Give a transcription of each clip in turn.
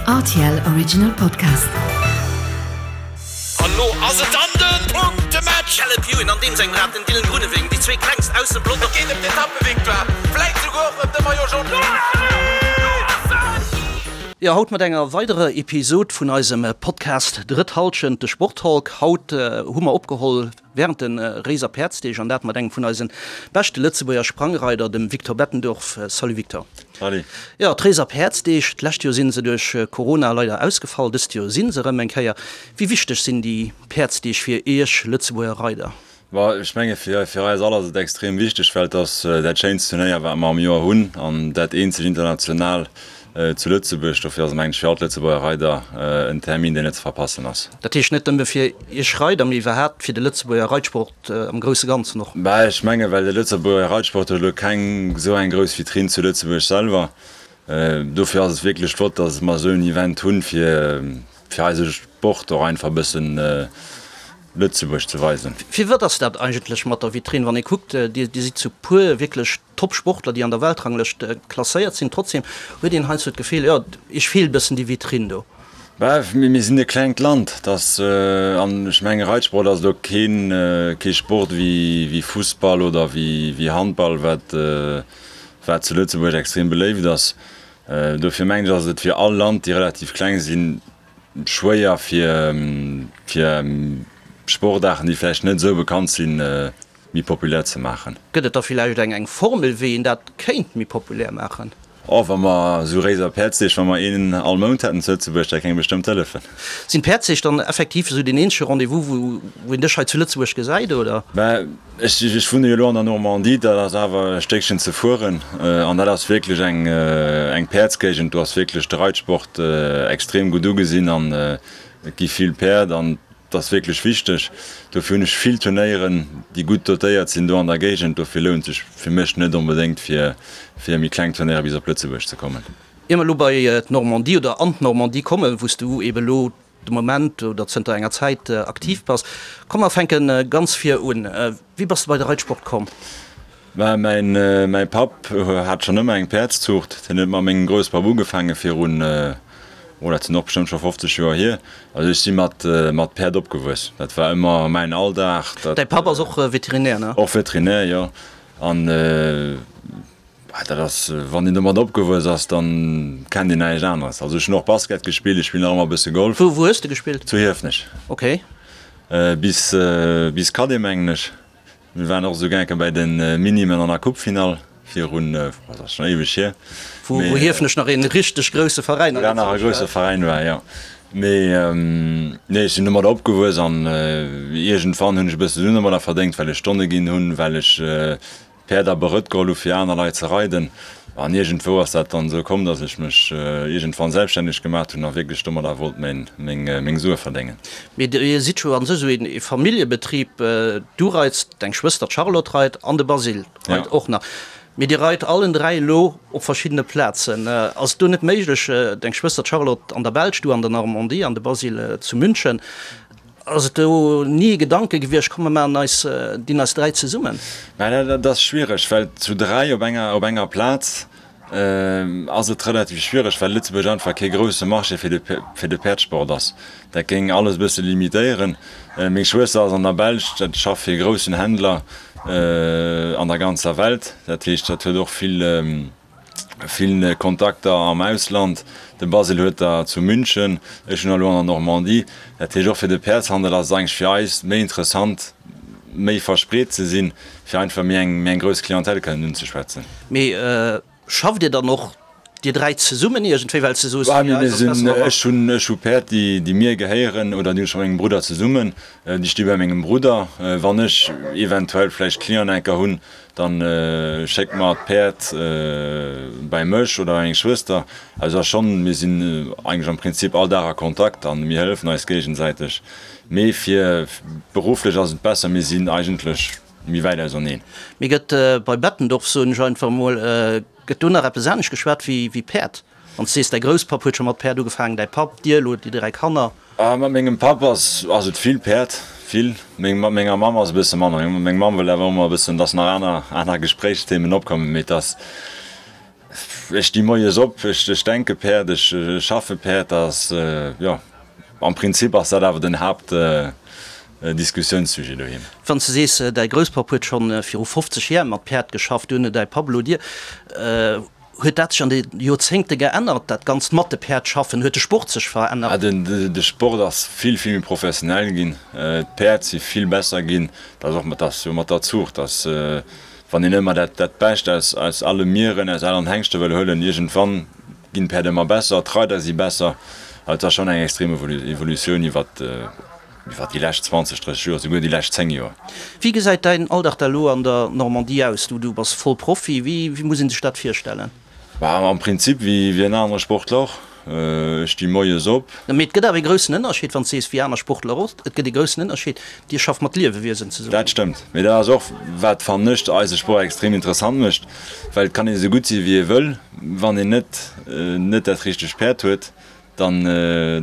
Rtl Original Podcast. An lo ass et dann den Punktematch! Caleb Ewan an deem sengem Rad den Dylan Groenewegen, déi zwee klengst aus dem Pelotong. Et geet ëm d'Etappevictoire, vläit souguer och ëm de Maillot Jaune. Jo, haut mat enger weiderer Episod vun eisem Podcast Drëtt Halschent, de Sporttalk. Haut hu mer opgeholl Während de Réiser Päerdsdeeg, an dat mat engem vun eisen beschte Lëtzebuerger Sprangreider, dem Victor Bettendorf. Salut Victor. Salut. Jo, d'Réiser Päerdsdeeg, d'lescht Joer sinn se duerch Corona leider ausgefall, dëst Joer sinn se erëm eng Kéier. Wéi wichteg sinn déi Päerdsdeeg fir Iech Lëtzebuerger Reider? Bon, ech menge fir eis all ass et extrem wichteg, well et ass dat schéinst Turnéier wat mer am Joer hunn an dat eenzegt international Zu Lëtzebuerg. Dofir ass et mengen ech fir all d'Lëtzebuerger Reider en Termin deen net ze verpassen ass. Dat heescht net nëmme fir Iech Reider, mee iwwerhaapt fir de Lëtzebuerger Reitsport am grousse Ganzen och? Bah, ech menge well de Lëtzebuerger Reitsport huet elo keng esou eng grouss Vitrinn zu Lëtzebuerg selwer. Dofir ass et wierklech flott, datt mer esou en Event hunn, fir fir eise Sport och einfach e bëssen Lëtzebuerg ze weisen. Firwat ass dat eigentlech mat der Vitrinn? Wann ee kuckt, Dir sidd zu puer wierklech Top-Sportler, déi an der Weltranglëscht klasséiert sinn. Trotzdem huet een heiansdo d'Gefill, jo, iech feelt e bëssen déi Vitrinn do. Bah, mir sinn e klengt Land, dass, an ech menge Reitsport ass elo keen, kee Sport wéi Fussball oder wéi Handball, wat, wat zu Lëtzebuerg extrem beléift ass. Dofir mengen ech, ass et fir all Land, déi relativ kleng sinn, schwéier fir, fir Sportaarten, déi vläicht net esou bekannt sinn, méi populär ze maachen. Gëtt et da villäicht eng eng Formel, wéi een dat kéint méi populär maachen? Oh, wa mer esou Réiser Päerdsdeeg, wa mer een all Mount hätten zu Lëtzebuerg, dat géing bestëmmt hëllefen. Sinn d'Päerdsdeeg dann effektiv esou deen eenzege Rendez-vous, wou wou een dech hei zu Lëtzebuerg gesäit, oder? Mä ech ech wunne jo elo an der Normandie, dat ass awer e Stéckchen ze fueren an dat ass wierklech eng eng Päerdsgéigend. Do ass wierklech de Reitsport extrem gutt ugesinn an et gi vill Päerd an Dat ass wierklech wichteg. Dofir hunn ech vill Turnéieren, déi gutt dotéiert sinn do an der Géigend. Dofir lount sech fir mech net onbedéngt fir fir méi kleng Turnéiere bis op Lëtzebuerg ze kommen. Ier mer elo bei d'Normandie oder an d'Normandie kommen, wou s du eebe elo de Moment oder zënter enger Zäit aktiv bass, komm mer fänke ganz vir un. Wéi bass de bei de Reitsport komm? Mä mäin mäi Papp hat schonn ëmmer eng Päerdszuucht. Hien huet mat mengem Grousspapp ugefaange virun, oh dat sinn och bestëmmt scho 50 Joer hier. Also ech si mat mat Päerd opgewuess. Dat war ëmmer mäin Alldag. Dat. Däi Papp ass och Veterinär, ne? Och Veterinär, jo. An dat ass, wann een domat opgewuess ass, dann kennt een näischt aneres. Also ech hunn och Basket gespillt, ech spillen nach ëmmer e bësse Golf. Wou wou hues de gespillt? Zu Hiefenech. Ok. Bis bis Cadet mengen ech. Mir waren och esou gäke bäi de Minimen an der Coupefinall virun, dat ass schonn éiweg hier. Wou Hiefenech nach ee richteg grousse Veräin war. Nach e grousse Veräin war, jo. Mee nee, ech sinn domadder opgewuess an iergendwann hunn ech e bësse Suen domadder verdéngt, well ech Stonne ginn hunn, well ech Päerd a Berëtt geholl hu fir aner Leit ze reiden. An iergendwou ass dat dann esou komm, datt ech mech iergendwann selbststänneg gemaacht hunn a wierklech domadder wollt meng Sue verdéngen. Mee Dir sidd jo an sech esou ee Familljebetrib. Du reits, deng Schwëster d'Charlotte reit an de Basile reit och nach. Mee Dir reit allen 3 elo op verschiddene Plazen. Ass et do net méiglech, deng Schwëster d'Charlotte an der Belsch, du an der Normandie an de Basile zu München, Ass et do ni e Gedanke gewiescht, komm mer maachen eis, dinn eis 3 zesummen? Mä dat ass schwiereg, well zu 3 op enger, op enger Plaz ass et relativ schwiereg, well Lëtzebuerg einfach kee grousse Marché fir de, fir de Päerdsport ass. Dat géing alles e bësse limitéieren. Meng Schwëster ass an der Belsch, dat schafft fir e groussen Händler an der ganzer Welt. Dat heescht, dat huet och vill, Vill Kontakter am Ausland, de Basile huet der zu München, ech hunn der elo an der Normandie. Dat heescht, och fir de Päerdshandel ass et eigentlech fir eis méi interessant, méi verspreet ze sinn, fir einfach méi eng méi eng grouss Clientèle kënnen unzeschwätzen. Mee schafft Dir dann och Dir 3 zesummen iergendwéi, well s de soos, fir eis ass et besser, wa mer. Ech hunn ech hu Päerd, déi déi mir gehéieren oder déi hunn ech mat mengem Brudder zesummen, déi sti bei mengem Brudder. Wann ech eventuell vläicht Clienten enker hunn, Dann schéckt mer d'Päerd bäi mech oder bei meng Schwëster. Also ass schonn, mir sinn eigentlech am Prinzip all Dag a Kontakt an mir hëllefen eis géigesäiteg. Mee fir berufflech ass et besser, mir sinn eigentlech méi wäit auserneen. Mee gëtt bei Bettendorf, soen ech einfach emol, gëtt do nach eppes anescht geschwat wéi Päerd? Wann s de sees, däi Grousspapp huet scho mat Päerd ugefaangen, däi Papp, dir elo, déi 3 Kanner. Mat mengem Papp ass ass et vill Päerd, vill. Meng mat menger Mamm ass e bësse manner. Meng Mamm wëll awer ëmmer e bëssen, dass nach aner aner Gespréichsthemen opkommen, mee et ass. Ech sti moies op, ech denke Päerd, ech schaffe Päerd. Dat ass, jo, am Prinzip ass dat awer den Haaptdiskussiounssujet doheem. Wann s de sees, däi Grousspapp huet scho viru 50 Jär mat Päerd geschafft, duerno däi Papp, elo dir, huet dat sech an de Joerzéngte geännert, dat Ganzt mat de Päerd schaffen? Huet de Sport sech verännert? De Sport ass vill, vill méi professionell ginn. D'Päerd si vill besser ginn. Dat ass och mat, ass jo mat der Zuucht, dass wann een ëmmer dat, dat Bescht aus, aus alle Mieren, aus allen Hengschte wëll huelen, iergendwann ginn d'Päerd ëmmer besser, d'Reider si besser. Also et ass schonn eng extrem Evolutioun iwwert, iwwert déi lescht 20, 30 Joer, souguer déi lescht 10 Joer. Wéi gesäit däin Alldag da elo an der Normandie aus? Du, du bass voll Profi. Wéi, wéi muss ee sech dat virstellen? Bah, am Prinzip wéi wéi en anere Sportler och. Ech sti moies op. Mee et gëtt awer ee groussen Ënnerscheed, wann s de sees wéi aner Sportler och. Et gëtt ee groussen Ënnerscheed, Dir schafft mat Liewewiesen zesummen. Dat stëmmt. Mee dat ass och, wat, fannen ech, eise Sport extrem interessant mécht, well et kann een esou gutt si wéi ee wëll, wann een net net dat richtegt Päerd huet, dann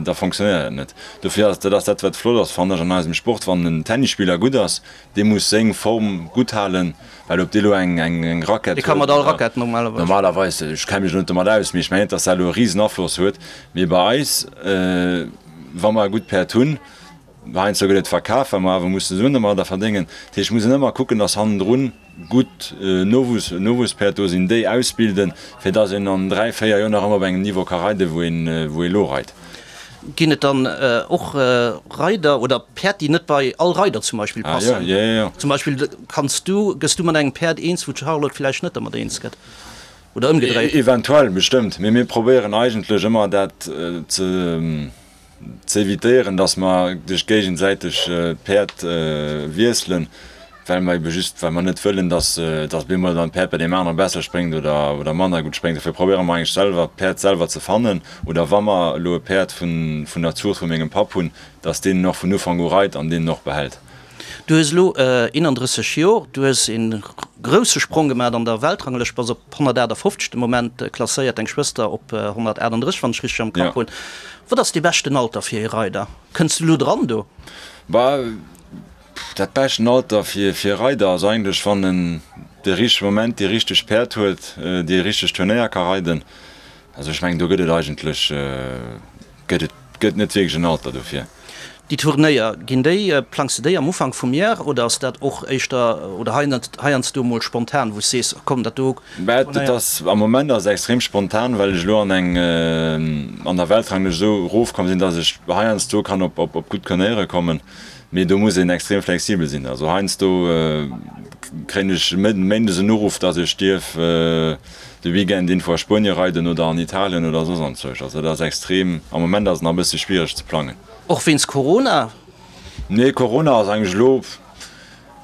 da fonctionnéiert dat net. Dofir ass dat ass dat wat flott ass fannen ech an eisem Sport, wann en Tennisspiller gutt ass, dee muss seng Form gutt halen, well ob dee lo eng eng eng Rackett Dee ka mat all Rackett normalerweis. Normalerweis, ech kenne mech elo net domat aus, mee ech mengen net, datt dat elo e risen Afloss huet. Mee bei eis, wa mer e gutt Päerd hunn, heiansdo gëtt et verkaf, well mer awer musse Suen domadder verdéngen, dat heescht, muss een ëmmer kucken, datt hannendrun gutt Nowuesspäerd do sinn, déi ausbilden, fir dass een an 3, 4 Joer nach ëmmer op engem Niveau ka reiden, wou een wou ee lo reit. Ginn et dann och Reider oder Päerd, déi net bei all Reider zum Beispill passen? Ah jo, jo, jo. Zum Beispill kanns du, gëss du mat engem Päerd eens, wou d'Charlotte villäicht net dermat eens gëtt? Oder ëmgedréit? Eventuell, bestëmmt. Mee mir probéieren eigentlech ëmmer dat ze. Z'evitéieren, dass mer duerch géigesäiteg d'Päerd wiesselen, well mer ebe just, well mer net wëllen, dass dass op eemol dann d'Päerd bei deem anere besser spréngt oder oder manner gutt spréngt. Dofir probéiere mer eigentlech selwer d'Päerd selwer ze fannen oder wa mer elo e Päerd vun vun der Zuucht vu mengem Papp hunn, dass deen en och vun Ufank u reit an deen en och behält. Du hues elo 31 Jor, du hues e grousse Sprong gemaach an der Weltranglëscht, bass op 158 de Moment klasséiert, deng Schwëster op 138, wann ech richteg am Kapp hunn. Wat ass dee beschten Alter fir ee Reider? Kënns du elo dran do? Bah, dat beschten Alter fir e Reider ass eigentlech, wann en de richtege Moment déi richteg Päerd huet, déi richteg Turnéier ka reiden. Also ech mengen, do gëtt et eigentlech gëtt et gëtt net wierklech en Alter dofir. Déi Turnéier, ginn déi, plangs de déi am Ufank vum Jar oder ass dat och éischter oder heiansdo mol spontan, wou s sees, komm dat do Mä et ass, am Moment ass et extrem spontan, well ech elo an eng, an der Weltranglëscht esou erofkomm sinn, datt ech heiansdo kann op op gutt Turnéiere kommen, mee do muss een extrem flexibel sinn. Also heiansdo kréien ech méindes en Uruff, datt ech dierf de Weekend info a Spuenie reiden oder an Italien oder soss anzwousch. Also dat ass extrem, am Moment ass et nach e bësse schwiereg ze plangen. Och wéinst Corona? Nee, Corona ass eigentlech elo,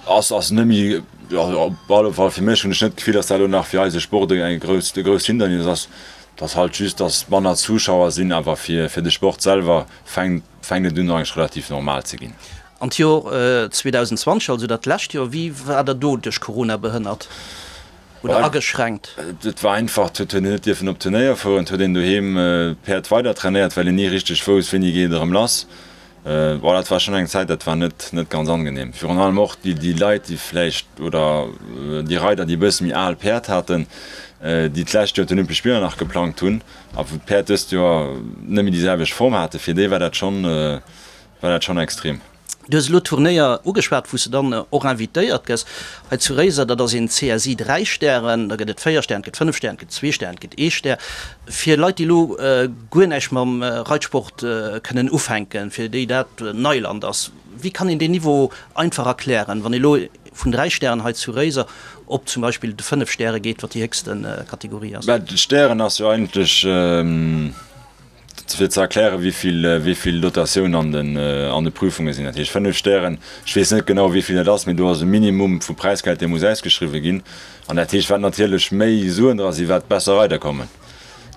ass ass net méi, op alle Fall fir mech hunn ech net d'Gefill, datt dat elo nach fir eise Sport e grousst e grousst Hindernis ass. Et ass halt just, datt manner Zuschauer sinn, awer fir fir de Sport selwer fänkt fänkt et un eigentlech relativ normal ze ginn. An d'Jor 2020, also dat lescht Joer, wéi war der do duerch Corona behënnert? Oder ageschränkt? Et war einfach, et huet een net dierfen op Turnéier fueren, et huet een doheem d'Päerd weider trainéiert, well een ni richteg wousst, wéini geet et erëm lass. Bon, dat war schonn eng Zäit, dat war net net ganz angenehm. Virun allem och déi déi Leit, déi vläicht oder déi Reider, déi e bësse méi al Päerd haten, déi d'lescht Joer d'Olympesch Spiller nach geplangt hunn a wou d'Päerd dëst Joer net méi déi selwecht Form haten, fir déi war dat schonn war dat schonn extrem. Du hues elo d'Turnéier ugeschwat, wou s de dann och invitéiert gëss. Hei zu Réiser, dat ass een CSI 3 Stären, da gëtt et 4 Stären, et gëtt 5 Stären, et gëtt zwee Stären, et gëtt ee Stär. Fir Leit, déi elo guer näischt mam Reitsport kënnen ufänken, fir déi dat Neiland ass, wéi kann een deen Niveau einfach erklären, wann ee elo vun 3 Stären hei zu Réiser op zum Beispill de 5 Stäre geet, wat déi héchste Kategorie ass? Mä d'Stären ass jo eigentlech. Fir ze erklären, wéi vill Dotatioun an de Prüfunge sinn, dat heescht 5 Stären, ech weess net genau, wéi vill dat ass, mee do ass e Minimum vu Präisgeld, dee muss ausgeschriwwe ginn. An dat heescht, wat natierlech méi Suen dra sinn, wat besser Reider kommen.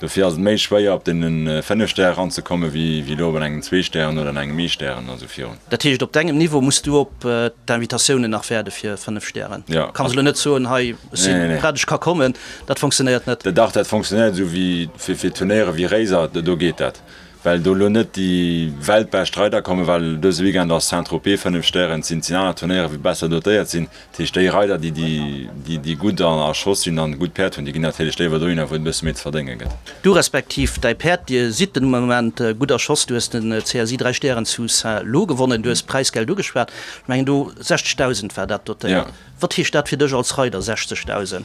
Dofir ass et méi schwéier, op deene 5 Stäre eranzekommen, wéi elo op engem zwee Stären oder an engem ee Stären a sou virun. Dat heescht, op dengem Niveau muss du op d'Invitatiounen nach waarde fir 5 Stären? Jo. Kanns elo net soen, hei, ech si prett, ech ka kommen. Dat fonctionnéiert net? Dach, dat fonctionnéiert esou wéi fir Turnéiere wéi Réiser, do geet dat. Well do elo net déi weltbescht Reider kommen, well dëse Weekend ass Saint-Tropez 5 Stären, et sinn aner Turnéiere wou besser dotéiert sinn. Dat heescht déi Reider déi déi déi gutt a Schoss sinn an gutt Päerd hunn, déi ginn natierlech léiwer dohinner wou et e bësse méi ze verdénge gëtt. Du respektiv däi Päerd, dir sidd den Moment gutt a Schoss. Du hues den CSI 3 Stären zu Saint-Lô gewonnen, du hues d'Präisgeld ugeschwat, ech mengen do 60.000 war dat dotéiert. Wat heescht dat fir dech als Reider, 60.000?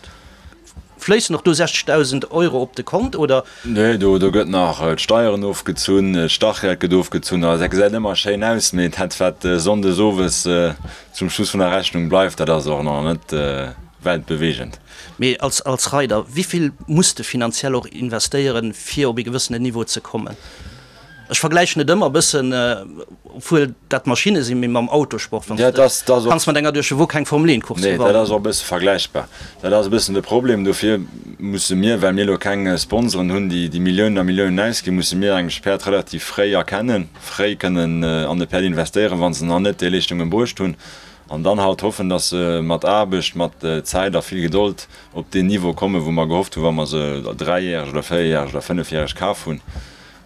Fléissen och do 60.000 Euro op de Kont, oder? Nee, do gëtt nach d'Steieren ofgezunn, d'Startgeld gëtt ofgezunn. Also dat gesäit ëmmer schéin aus, mee dat wat sonndes owes zum Schluss vun der Rechnung bleift, dat ass och nach net weltbeweegend. Mee als Reider, wéi vill muss de finanziell och investéieren, fir op ee gewëssenen Niveau ze kommen? Ech vergläichen et ëmmer e bëssen, obwuel dat Maschinne sinn, mee mam Autosport, wann s de kanns mat enger Duerchewuer keng Formel 1 Course gewannen. Nee, dat ass och e bësse vergläichbar. Dat ass e bëssen de Problem. Dofir musse mir, well mir elo keng Sponsoren hunn, déi déi Milliounen a Milliounen ausginn, musse mir eigentlech d'Päerd relativ fréi erkennen, fréi kënnen an de Päerd investéieren, wa se nach net déi Leeschtungen bruecht hunn, an dann halt hoffen, datt se mat Aarbecht, mat Zäit a vill Gedold op deen Niveau kommen, wou mer gehofft hunn, wa mer se dräijäreg oder véierjäreg oder fënnefjäreg kaf hunn.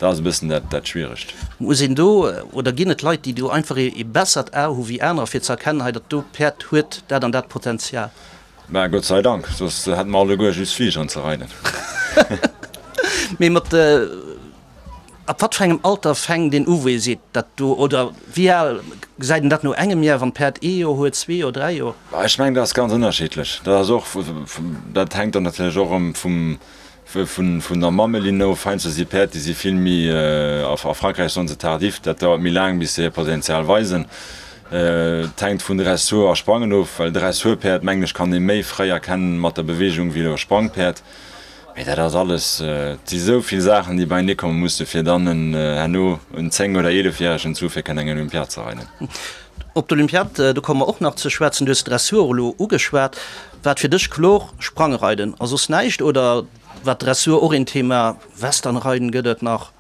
Dat ass e bëssen dat Schwieregt. Muss een do, oder ginn et Leit, déi do einfach ee bessert A hu wéi anerer, fir ze erkennen, hei dat do Päerd huet dat an dat Potenzial? Mä Gott sei Dank, soss hätte mer alleguer just Fligeren ze reiden. Mee mat, ab wat fir engem Alter fänkt een u wou ee seet, dat do, oder wéi al, gesäit een dat no engem Jar, wann d'Päerd ee Joer huet, zwee Joer, dräi Joer? Ech mengen, dat ass ganz ënnerschiddlech. Dat ass och, dat hänkt dann natierlech och erëm vum, Vun der Mammelinn of, heiansdo si Päerd, déi si vill méi, a Frankräich soen se tardif, dat dauert méi laang bis se hir Potenzial weisen. Et hänkt vun Dressur a Sprangen of, well Dressurpäerd, mengen ech, kann ee méi fréi erkennen mat der Beweegung wéi elo e Sprangpäerd. Mee dat ass alles, et si sou vill Saachen, déi beienee komme musse fir dann en herno en 10 oder 11 järegen zu fir kënnen eng Olympiad ze reiden. Op d'Olympiad, do komme mer och nach ze schwätzen. Du hues d'Dressur elo ugeschwat. War et fir dech kloer, Sprangreiden a soss näischt oder war d'Dressur och een Thema? Westernreiden gëtt et nach.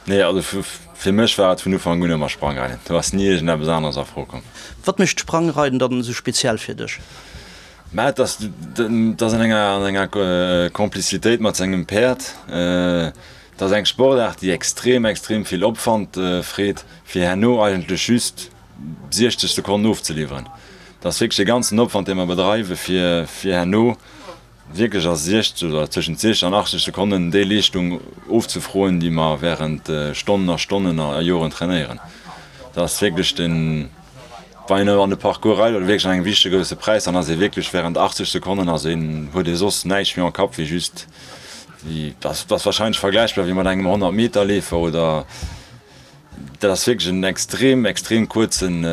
Nee, also fir mech war et vun Ufank un ëmmer Sprangreiden. Do ass ni iergendeppes aneres a Fro komm. Wat mécht d'Sprangreiden dann esou speziell fir dech? Mä et ass, et ass an enger, an enger Complicitéit mat sengem Päerd. Et ass eng Sportaart, déi extrem, extrem vill Opwand freet, fir herno eigentlech just 60 Sekonnen ofzeliwweren. Dat ass wierklech e ganzen Opwand, dee mer bedreiwen, fir fir herno wierklech a 60 oder tëschent 60 an 80 Sekonnen déi Leeschtung ofzefroen, déi mer während Stonnen a Stonnen a Joren trainéieren. Dat ass wierklech den, wann een an de Parcours reit oder wierklech an engem wichtege grousse Präis, dann ass ee wierklech während 80 Sekonnen ass een, huet ee soss näischt méi am Kapp wéi just, wéi, dat ass wahrscheinlech vergläichbar wéi mat engem 100 Meter Leefer oder. Dat ass wierklech en extrem, extrem kuerzen,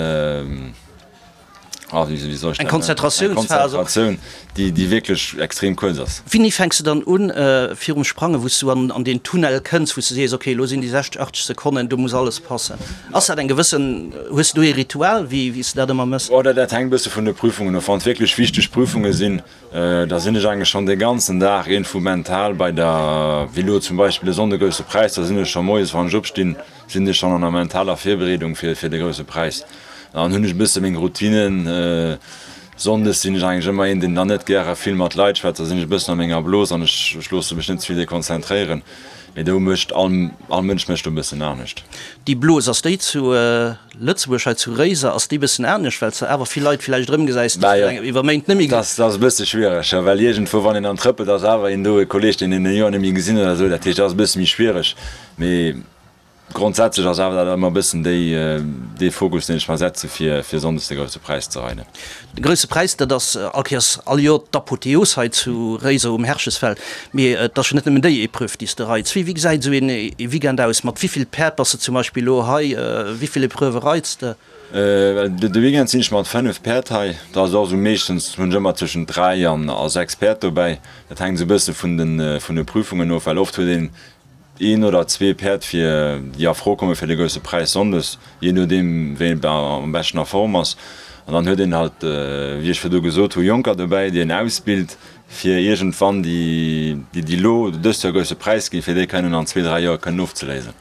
ah, wéi soll ech dat nennen? Eng Konzentratiounsphas. Eng Konzentratioun, déi, déi wierklech extrem kuerz ass. Wéini fänks de dann un, virum Sprangen, wou s du an, an deen Tunnel kënns, wou s du sees, okay, elo sinn déi 60, 80 Sekonnen, do muss alles passen? Ass dat eng gewëssen, hues du do ee Ritual, wéi, wéi s de dat ëmmer mëss? Oh, dat, dat hänkt e bësse vun de Prüfungen of. Wann et wierklech wichteg Prüfunge sinn, da sinn ech eigentlech schonn dee ganzen Dag iergendwou mental bei der, wéi elo zum Beispill e Sonnde Grousse Präis, da sinn ech scho moies, wann ech opstinn, sinn ech schonn an der mentaler Virbereedung fir fir de Grousse Präis. Dann hunn ech e bësse meng Routinen. Sonndes sinn ech eigentlech ëmmer een, deen dann net gäre vill mat Leit schwätzt, da sinn ech e bëssen a menger Blos an ech ech loosse mech net ze vill dekonzentréieren. Mee do mécht all all Mënsch mécht do e bëssen anescht. Déi Blos, ass déi zu Lëtzebuerg hei zu Réiser ass déi bëssen anescht, well s de awer vill Leit villäicht erëmgesäis, déi s de iwwer Méint net méi. Dat ass e bësse schwiereg, jo, well iergendwou, wann een dann trëppelt, ass awer een do, e Kolleeg, deen een e Joer net méi gesinn huet oder esou. Dat heescht, dat ass e bësse méi schwiereg. Mee grondsätzlech ass awer dat ëmmer e bëssen déi, dee Fokus, deen ech mer setze fir, fir sonndes de Grousse Präis ze reiden. De Grousse Präis, dat ass all Kéiers, all Joer d'Apotheos hei zu Réiser um Herchesfeld. Mee et ass jo net nëmmen déi Epreuve, déi s de reits. Wéi gesäit esou een Weekend aus? Mat wéi vill Päerd bass de zum Beispill elo hei? Wéi vill Epreuvë reits de? De Weekend sinn ech mat 5 Päerd hei. Dat ass och esou, meeschtens hunn ech ëmmer tëschent 3 an 6 Päerd dobäi. Dat hänkt esou e bësse vun de Prüfungen of, well oft huet een een oder zwee Päerd fir déi a Fro komme fir de Grousse Präis sonndes, jee nodeem wéi een am beschten a Form ass. An dann huet een halt, wéi ech virdu gesot hu, Jonker dobäi, déi een ausbilt, fir iergendwann déi, déi elo dëst Joer Grousse Präis ginn, fir déi kënnen an zwee, dräi Joer kënnen ofzeléisen.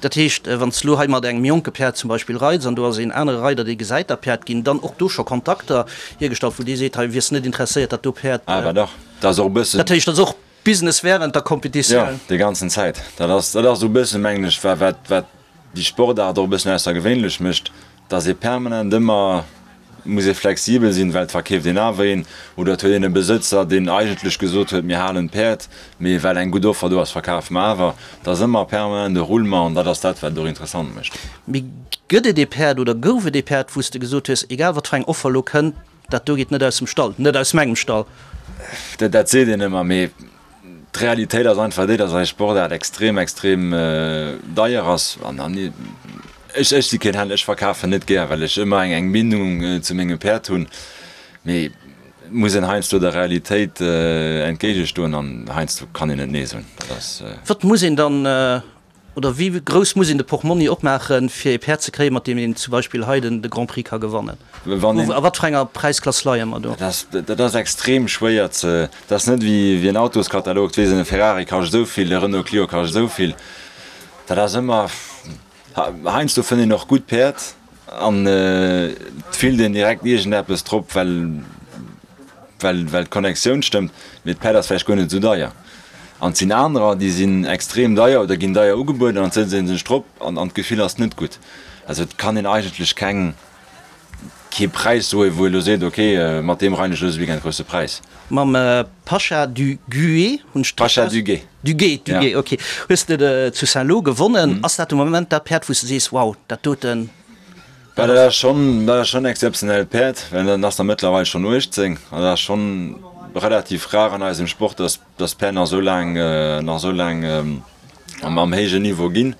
Dat heescht, wann s de elo hei mat engem jonke Päerd zum Beispill reits an do ass een anere Reider, dee gesäit dat Päerd, ginn dann och do scho Kontakter hiergestallt, wou dee seet, hei wiers net interesséiert, dat do Päerd. Awer dach, dat ass och e bëssen. Dat heescht, dat ass och. Business wärend der Competitioun. Jo, déi ganzen Zäit. Dat ass, dat ass esou e bëssen, mengen ech, wat, wat, wat déi Sportaart och e bëssen aussergewéinlech mécht, dass ee permanent ëmmer muss ee flexibel sinn, well et verkeeft een awer een oder et huet een e Besëtzer, deen eigentlech gesot huet, mir halen d'Päerd, mee well eng gutt Offer do ass, verkafe mer awer. Et ass ëmmer permanent e Roulement an dat ass dat, wat et och interessant mécht. Mee gëtt et ee Päerd oder gouf et ee Päerd, wou s de gesot hues, egal wat fir eng Offer elo kënnt, dat do geet net aus dem Stall, net aus mengem Stall? Dat seet een ëmmer, mee d'Realitéit ass einfach déi, dass eis Sportaart extrem, extrem deier ass. An ech, ech si keen Händler, ech verkafen net gär, well ech ëmmer eng, eng Bindung zu mengem Päerd hunn. Mee et muss een heiansdo der Realitéit entgéigestoen an heiansdo kann een net Nee soen. Dat ass. Wat muss een dann Oder wéi grouss muss een de Portmonni opmaachen, fir ee Päerd ze kréien, mat deem een zum Beispill hei de Grand Prix ka gewannen? A wat fir enger Präisklass leie mer do? Dat ass extrem schwéier ze. Dat ass net wéi en Autoskatalog, et weess een, e Ferrari kascht esou vill, e Renault Clio kascht esou vill. Dat ass ëmmer. Heiansdo fënnt een och gutt Päerd an et fillt een direkt iergendeppes drop, well. well well d'Connectioun stëmmt, mee d'Päerd ass vläicht guer net esou deier. An et sinn anerer, déi sinn extrem deier oder ginn deier ugebueden an et sëtzt ee sech drop an an d'Gefill ass net gutt. Also et kann een eigentlech keng kee Präis soen, wou ee lo seet, ok, mat deem reien ech dëse Weekend grousse Präis. Mam Pasha du Gué hunn ech Pasha du Gué. Du Gué, du Gué, ok. Hues de zu Saint-Lô gewonnen. Ass dat de Moment dat Päerd, wou s de sees, wow, dat doten? Bah, dat ass schonn, dat ass schonn en exzeptionellt Päerd, well dat ass der mëttlerweil schonn 18 an dat ass schonn relativ rar an eisem Sport, dass, dass Päerd nach esou laang, nach esou laang am, am héijen Niveau ginn.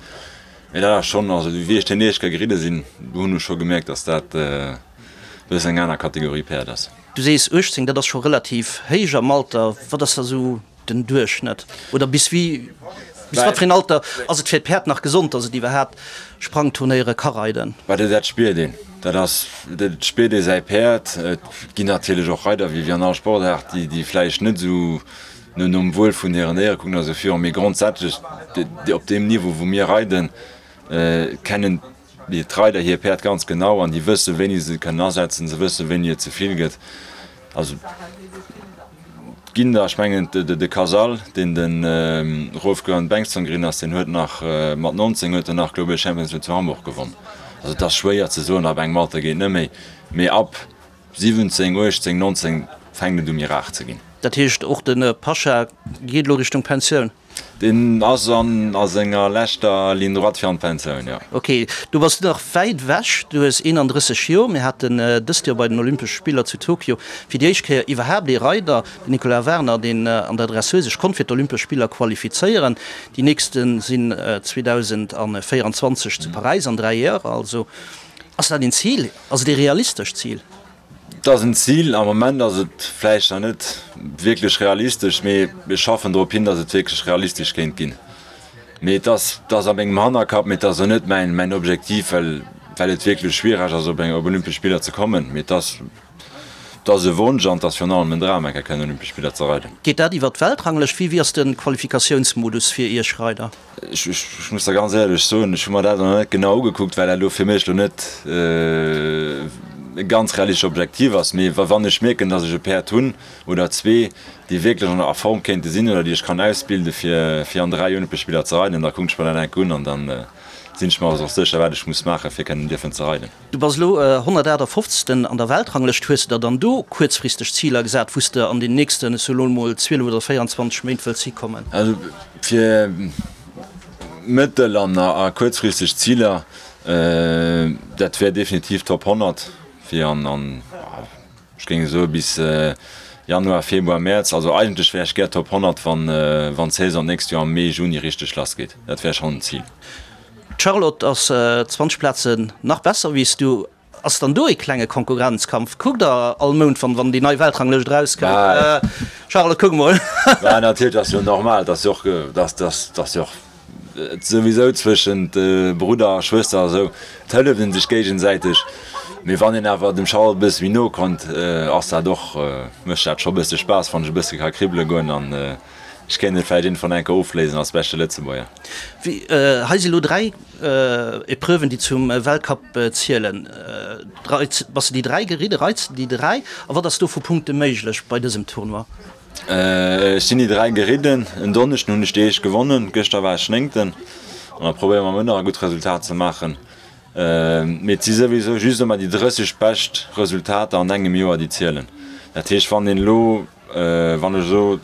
Mee dat ass schonn, also wéi ech deen éischt Kéier geridde sinn, do hunn ech scho gemierkt, dass dat e bëssen eng aner Kategorie Päerd ass. Du sees 18, dat ass scho relativ héich am Alter. Wat ass da esou Den Duerchschnëtt, oder bis wéi, bis wat fir een Alter ass et fir d'Päerd nach gesond, dass et iwwerhaapt Sprangturnéiere ka reiden? Bah, dat spiert een. Dat ass, dat spiert ee säi Päerd. Et ginn natierlech och Reider, wéi an all Sportaart, déi, déi vläicht net esou no nom Wuel vun hiren Déiere kucken oder esou virun. Mee grondsätzlech, op deem Niveau, wou mir reiden, kennen d'Reider hir Päerd ganz genau an déi wëssen, wéini se se kënnen asetzen, se wëssen, wéini et ze vill gëtt. Also et ginn der, ech mengen de Casal, deen de Rolf Göran Bengtsson gerinn ass, deen huet nach mat 19 huet en nach Global Champions League zu Hamburg gewonn. Also et ass schwéier ze soen, ab engem Alter geet net méi, mee ab 17, 18, 19 fänkt et u méi rar ze ginn. Dat heescht och de Pasha geet elo Richtung Pensioun? Deen ass an a senger leschter Ligne droite fir an d'Pensioun, jo. Ok, du bass nach wäit ewech, du hues 31 Joer. Mir haten dëst Joer bei den Olympesche Spiller zu Tokio fir déi éischt Kéier iwwerhaapt ee Reider, den Nicolas Werner, deen an der Dressur sech konnt fir d'Olympesch Spiller qualifizéieren. Déi nächste sinn 2024 zu Paräis, an 3 Joer also. Ass dat een Zil? Ass et ee realistescht Zil? Et ass en Zil. Am Moment ass et vläicht nach net wierklech realistesch, mee mir schaffen drop hin, datt et wierklech realistesch kéint ginn. Mee et ass, et ass a mengem Hannerkapp, mee et ass och net mäin, mäin Objektiv, well, well et wierklech schwiereg ass, op eng, op Olympesch Spiller ze kommen. Mee et ass, et ass e Wonsch an et ass virun allem en Dram, eng Kéier kënnen Olympesch Spiller ze reiden. Geet dat iwwer d'Weltranglëscht? Wéi, wéi ass de Qualifikatiounsmodus fir Iech Reider? Ech muss der ganz éierlech soen, ech hu mer dat nach net genau ugekuckt, well dat elo fir mech elo net e ganz realistesch Objektiv ass. Mee wann ech mierken, datt ech e Päerd hunn oder zwee, déi wierklech an a Form kéinte sinn oder déi ech kann ausbilde fir fir an 3 Olympesch Spiller ze reiden, da kucken ech mer dat enk un an da sinn ech mer och sécher, wat ech muss maachen, fir kënnen dierfen ze reiden. Du bass elo 158. An der Weltranglëscht. Hues de der dann do kuerzfristeg Ziler gesat, wou s de an den nächsten, ech soe lo emol, 12 oder 24 Méint wëlls hikommen? Also fir mëttel an a kuerzfristeg Ziler, dat wär definitiv Top 100 fir an, an ech géing soe bis Januar, Februar, Mäerz. Also eigentlech wär ech gär Top 100, wann wann d'Saison d'nächst Joer am Mee, Juni richteg lass geet. Dat wär schonn en Zil. D'Charlotte ass 20 Plazen nach besser wéi s du. Ass dann do ee klenge Konkurrenzkampf? Kuckt der all Mount wann wann déi nei Weltranglëscht erauskënnt? Charlotte kuck mol. Bah natierlech ass jo normal, dass jo och dass dass dass jo och souwisou zwëschent Brudder a Schwëster a sou, et hëlleft een sech géigesäiteg. Mee wann een awer dem Charlotte e bësse méi no konnt, ass dat och mécht dat scho bësse Spaass wann ech e bësse ka kribbele goen an Ech kéint et vläicht iergendwann eng Kéier ofléisen als beschte Lëtzebuerger. Hei si lo 3 Epreuven, déi zum Weltcup zielen. Bass de déi 3 geridde? Reits de déi 3? A wat ass do vu Punkte méiglech bei dësem Tournoi? Ech sinn déi 3 geridden. En Donneschden hunn ech déi éischt gewonnen, gëschter war ech Néngten an da probéiere mer muer nach e gutt Resultat ze maachen. Mee et si souwisou just ëmmer déi 30 bescht Resultater an engem Joer déi zielen. Dat heescht wann een elo, wann ech elo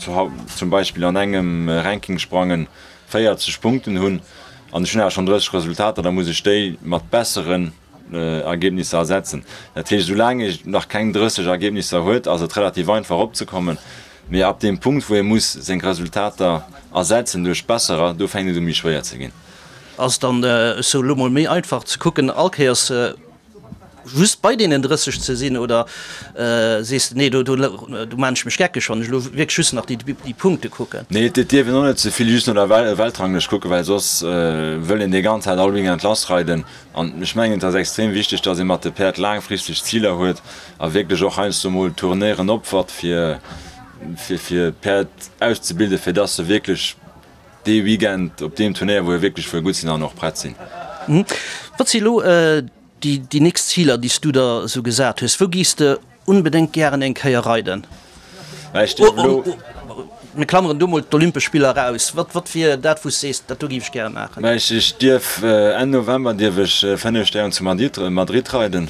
zum Beispill an engem Rankingsprangen 40 Punkten hunn an ech hunn awer schonn 30 Resultater, da muss ech déi mat besseren Ergebnisser ersetzen. Dat heescht, soulaang ee nach keng 30 Ergebnisser huet, ass et relativ einfach eropzekommen, mee ab deem Punkt, wou ee muss seng Resultater ersetzen duerch besserer, do fänkt et u méi schwéier ze ginn. Ass et dann, ech soe lo mol, méi einfach ze kucken, all Kéiers just bei deenen 30 ze sinn, oder sees de, nee, do maan ech mech geckeg, wann ech elo wierklech just nach déi Punkte kucken? Nee, et dierf een och net ze vill just no der Weltranglëscht kucken, well soss wëll een déi ganz Zäit all Weekend lassreiden. An ech mengen, et ass extrem wichteg, dass ee mat de Päerd laangfristeg Ziler huet a wierklech och heiansdo mol Tournéieren opfert, fir fir d'Päerd auszebilden, fir dass se wierklech dee Weekend op deem Turnéier, wou e wierklech wëll gutt sinn, dann och prett sinn. Wat si elo déi nächst Ziler, déi s du der esou gesat hues? Wou gees de Onbedéngt gären eng Kéier reiden. Mir klammeren do mol d'Olympesch Spiller eraus. Wat, wat wier dat, wou s sees, dat do géif ech gäre maachen? Mä ech dierf Enn November dierf ech 5 Stären zu Madrid, Madrid reiden.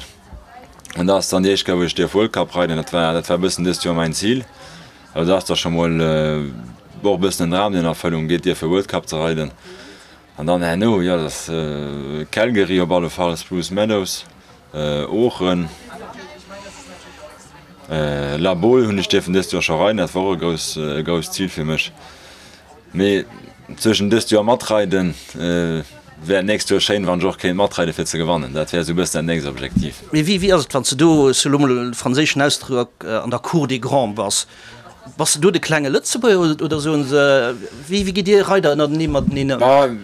An dat ass dann déi éischt Kéier, wou ech dierf World Cup reiden. Dat war, dat war e bëssen dëst Joer mäin Zil. Also dat ass da scho mol och e bëssen en Dram, deen an Erfëllung geet, dierfe World Cup ze reiden. An dann herno, jo, dat ass Calgary op alle Fall, Spruce Meadows, Oochen, La Baule hunn ech dierfen dëst Joer scho reiden, dat war och e grouss, e grousst Zil fir mech. Mee zwëschen dëst Joer matreiden, wär d'nächst Joer schéin, wann ech och kéint matreiden, fir ze gewannen. Dat wär esou e bëssen dat nächst Objektiv. Mee wéi, wéi ass et, wann s de do, ech soe lo mol e franséischen Ausdrock, an der Cour des Grands bass? Bass de do de klenge Lëtzebuerger oder soen se, wéi wéi gitt dir Reider ënnertenee mateneen ëm?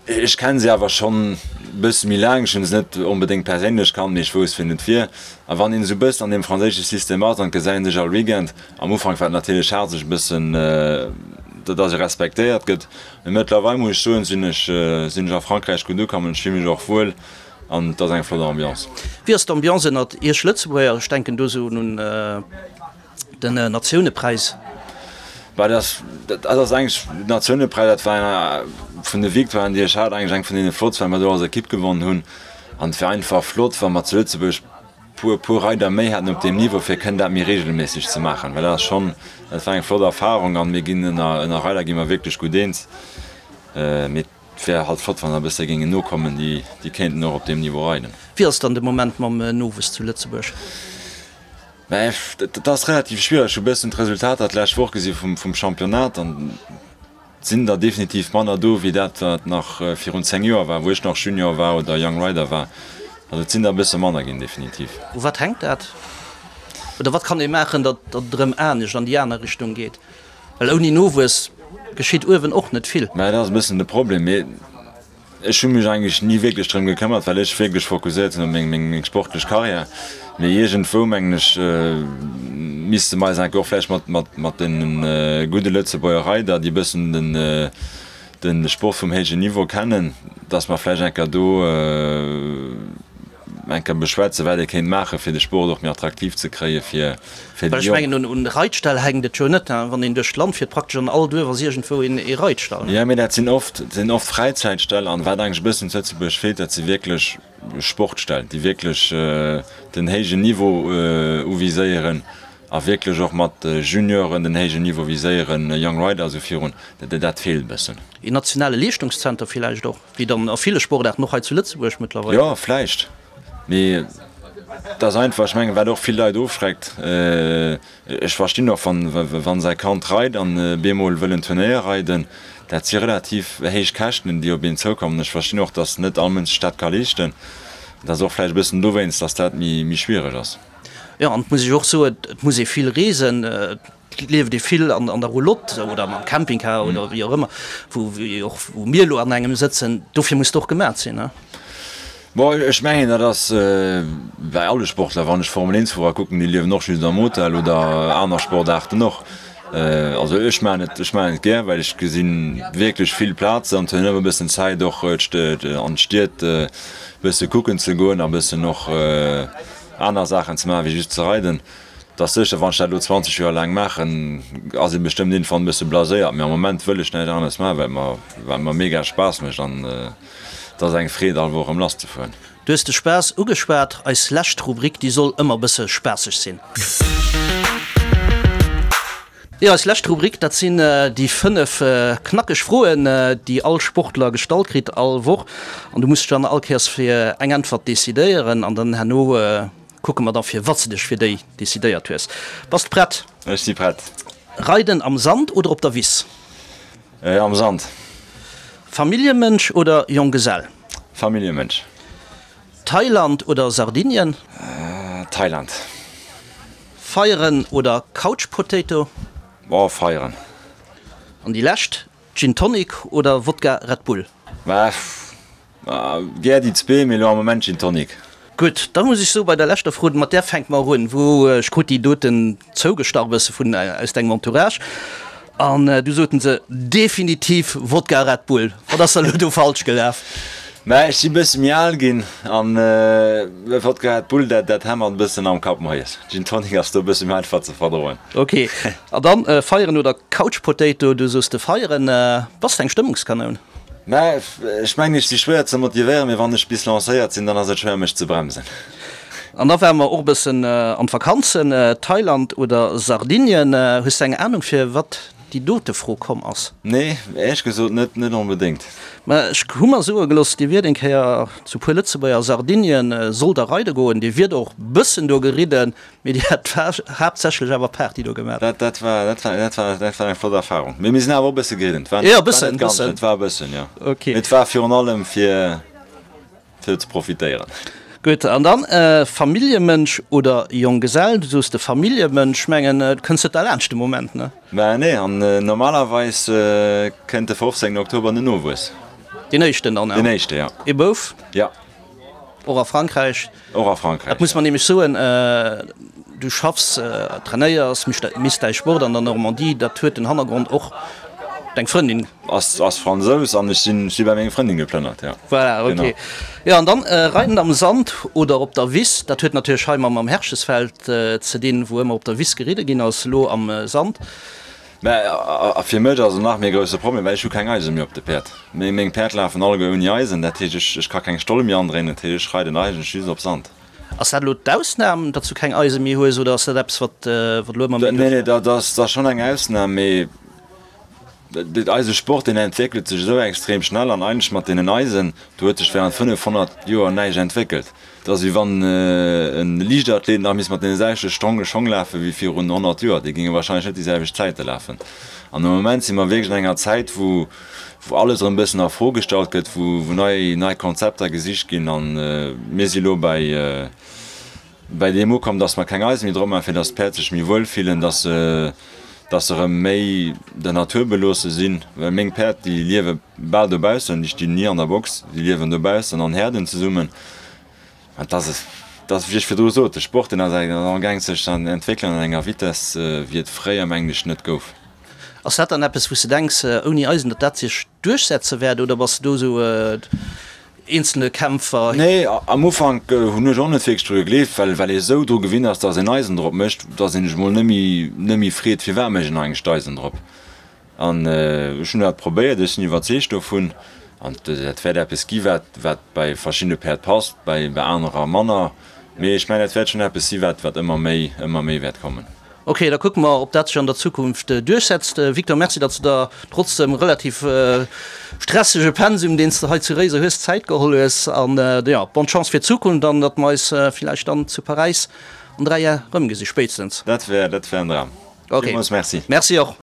Ech kennen se awer schonn bësse méi laang. Ech hunn se net onbedéngt perséinlech kannt, mee ech wousst wien et wier. A wann een esou bëssen an deem franséische System ass, an et gesäit een sech all Weekend, am Ufank war et natierlech haart sech e bëssen, datt ee respektéiert gëtt, mee mëttlerweil muss ech soen, sinn ech sinn ech a Frankräich gutt ukomm an ech fille mech och wuel an et ass eng flott Ambiance. Wéi ass d'Ambiance ënnert iech Lëtzebuerger? Ech denken do esou un. Den Natiounepräis. Bah, dat dat ass eigentlech, den Natiounepräis, dat war vun de Victoiren, déi ech hat, eigentlech eng vun deene flottst, well mer do als Ekipp gewonnen hunn. An et wär einfach flott, wa mer zu Lëtzebuerg puer, puer Reider méi hätten op deem Niveau, fir kënnen dat méi reegelméisseg ze maachen. Well dat ass schonn, dat war eng flott Erfarung an mir ginn ënner, ënner Reider gi mer wierklech gutt eens. Mee et wär halt flott, wann der e bësse géingen nokommen, déi, déi kéinten och op deem Niveau reiden. Wéi ass et dann de Moment mam Nowuess zu Lëtzebuerg? Mä dat ass relativ schwiereg. Ech hu bëssen d'Resultater d'lescht Woch gesi vum Championnat an et sinn der definitiv manner do wéi dat wat nach virun 10 Joer war, wou ech nach Junior war oder Young Rider war. Also et sinn der e bësse manner ginn, definitiv. U wat hänkt dat? Oder wat kann ee maachen, datt et erëm anescht an déi aner Richtung geet? Well ouni Nowuess geschitt uewen och net vill. Mä dat ass e bëssen de Problem. Mee Ech hu mech eigentlech ni wierklech drëm gekëmmert, well ech wierklech fokusséiert sinn op meng sportlech Karriär. Mee iergendwou, mengen ech, misste mer eis enke och vläicht mat deene gudde Lëtzebuerger Reider, déi e bëssen de Sport vum héijen Niveau kennen, datt mer vläicht enker do Eng Kéier beschwätzen, wat ee kéint maachen, fir de Sport och méi attraktiv ze kréie fir déi Jonk. Well ech mengen, un Reitställ hänkt et jo net. Wann een duerch d'Land fiert, praktesch an all Duerf ass iergendwou ee Reitstall. Jo, mee dat sinn oft, sinn oft Fräizäitställ. An wat eigentlech e bëssen zu Lëtzebuerg feelt, dat si wierklech Sportställ, déi wierklech den héijen Niveau uviséieren a wierklech och mat Junioren den héijen Niveau viséieren, Young Rider a sou virun. Dat feelt e bëssen. Een nationale Leeschtungszenter villäicht och? Wéi dann a ville Sportaarten, och hei zu Lëtzebuerg mëttlerweil. Jo, vläicht, mee et ass einfach, ech mengen, wat och vill Leit ofschreckt, ech verstinn och, wann säi Kand reit an bemol wëll en Turnéier reiden, dat si relativ héich Käschten, déi op een zoukommen. Ech verstinn och, datt net all Mënsch sech dat ka leeschten. Et ass och vläicht e bëssen dowéinst, datt dat méi schwiereg ass. Jo, an et muss ech och soen, et muss ee vill reesen. Et lieft ee vill an der Roulotte oder mam Campingcar oder wéi och ëmmer, wou och wou mir elo an engem sëtzen. Dofir muss et och gemat sinn, ne? Bon, ech mengen, dat ass bäi alle Sportler. Wann ech Formel-Eent-Fuerer kucken, déi liewen och just am Hotel oder aner Sportaarten och. Also ech maachen et, ech maachen et gär, well ech gesi wierklech vill Plazen an hunn ëmmer e bëssen Zäit och an d'Stied e bësse kucken ze goen a bëssen och aner Saachen ze maachen, wéi just ze reiden. Et ass sécher, wann ech dat elo 20 Joer laang maachen, ass ee bestëmmt iergendwann e bësse blaséiert, mee am Moment wëll ech näischt aneres maachen, well et mer, well et mer mega Spaass mécht an et ass eng Freed all Woch erëm lasszefueren. Du hues de Spaass ugeschwat. Eis lescht Rubrik, déi soll ëmmer e bësse spaasseg sinn. Jo, eis lescht Rubrik, dat sinn déi 5 knackeg Froen, déi all Sportler gestallt kritt all Woch. An du muss dech dann all Kéiers fir eng Äntwert decidéieren an dann herno kucke mer da firwat s de dech fir déi decidéiert hues. Bass de prett? Ech si prett. Reiden am Sand oder op der Wiss? Am Sand. Familljemënsch oder Jonggesell? Familljemënsch. Thailand oder Sardinien? Thailand. Feieren oder Couch Potato? Oh, feieren. An déi lescht, Gin Tonic oder Wodka Red Bull? Gär déi zwee, mee elo am Moment Gin Tonic. Gutt, da muss ech soen, bei der leschter Fro, mat där fänke mer un, wou ech krut déi doten zougestach e bësse vun aus dengem Entourage an du soten se definitiv Wodka Red Bull. Wat ass da elo do falsch gelaf? Mä ech si bësse méi al ginn an Wodka Red Bull, dat dat hämmert e bëssen am Kapp moies. Gin Tonic ass do e bësse méi einfach ze verdroen. Ok, an dann feieren oder Couch Potato? Du soos de feieren. Bass de eng Stëmmungskanoun? Mä ech mengen, ech si schwéier ze motivéieren, mee wann ech bis lancéiert sinn, dann ass et schwéier mech ze bremsen. An da ware mer och e bëssen an d'Vakanzen, Thailand oder Sardinien. Hues de eng Anung fir wat déi dote Fro komm ass? Nee, éierlech gesot net, net onbedéngt. Mä ech hu mer soe gelooss, dir wiert eng Kéier zu puer Lëtzebuerger a Sardinien, sollt der reide goen, dir wiert och bëssen do geridden, Mee dir hat haaptsächlech awer Party do gemaach. Dat, dat war, dat war, dat war, dat war eng flott Erfahrung. Mee mir sinn awer och e bësse geridden. Et war, Jo, e bëssen, e bëssen. Et war e bëssen, jo. Ok. Mee et war virun allem fir, fir ze profitéieren. Gutt, an dann Familljemënsch oder Jonggesell? Du soos de Familljemënsch. Mengen, du kënns net derlaanscht de Moment, ne? Mä nee, an normalerweis kënnt de 15 Oktober den Nowuess. Deen éischten dann? Deen éischte, jo. Ee Bouf? Jo. Och a Frankräich? Och a Frankräich, Dat muss man nämlech soen, du schaffs, trainéiers, misst däi Sport an der Normandie, dat huet den Hannergrond och deng Frëndin. Ass ass Fransous an ech sinn si bei meng Frëndin geplënnert, jo. Voilà, ok. Jo, an dann Reiden am Sand oder op der Wiss, dat huet natierlech hei mam Herchesfeld ze dinn, wou ëmmer op der Wiss geridde ginn ass, elo am Sand. Mä a fir mech ass et nach méi e grousse Problem, well ech hu keng Eise méi op de Päerd. Meng Päerd lafen alleguer ouni Eisen, dat heescht ech ech ka keng Stoll méi andréinen, dat heescht ech reiden eigentlech just op Sand. Ass dat elo d'Ausnam, datt s du keng Eise méi hues, oder ass dat eppes wat wat elo ëmmer méi Nee, nee, dat ass dat ass schonn eng Ausnam, mee eise Sport deen entwéckelt sech esou extrem schnell an eigentlech mat deenen Eisen, do huet sech während 500 Joer näischt entwéckelt. Et ass wéi wann e Liichtathlet nach misst mat deene selwechte Stronge Schong lafe wéi virun 100 Joer. Déi géinge warscheinlech net déi selwecht Zäite lafen. An am Moment si mer wierklech an enger Zäit, wou alles erëm e bëssen a Fro gestallt gëtt, wou nei nei Konzepter gesicht ginn. A mir si elo bäi bäi deem ukomm, datt mer keng Eise méi drop maachen, fir datt d'Päerd sech méi wuel fillen, datt se datt se erëm méi der Natur beloosse sinn. Well meng Päerd, déi liewe bal dobaussen, déi stinn ni an der Box, déi liewen dobaussen an Häerden zesummen. An dass et, dass, wéi ech virdru sot, de Sport, deen ass amgaang sech ze entwéckelen an enger Vitesse, wéi et fréier, mengen ech, net gouf. Ass dat dann eppes, wou s de denks, ouni Eisen, datt dat sech duerchsetze wäert, oder bass de do esou eenzelne Kämpfer? Nee, am Ufank hunn ech och net wierklech dru gegleeft, well, well ee sou dru gewinnt ass, dass een Eisen drop mécht, dass een sech mol net méi, net méi freet, firwat mécht een eigentlech d'Eisen drop. An ech hunn dat probéiert, ech sinn iwwerzeegt dovun. An dat wäert eppes gi wat wat bei verschiddene Päerd passt, bei bei anerer manner. Mee ech mengen, dat wäert schonn eppes si wat wat ëmmer méi ëmmer méi wäert kommen. Ok, da kucke mer, ob dat sech an der Zukunft duerchsetzt. Victor, Merci, datt s de der trotz dem relativ stressege Pensum, deen s de hei zu Réiser hues, Zäit geholl hues. An jo, bonne Chance fir d'Zukunft an datt mer eis villäicht dann zu Paräis an 3 Jar erëmgesi spéitstens. Dat wär dat wär en Dram. Ok, Villmools Merci. Merci och.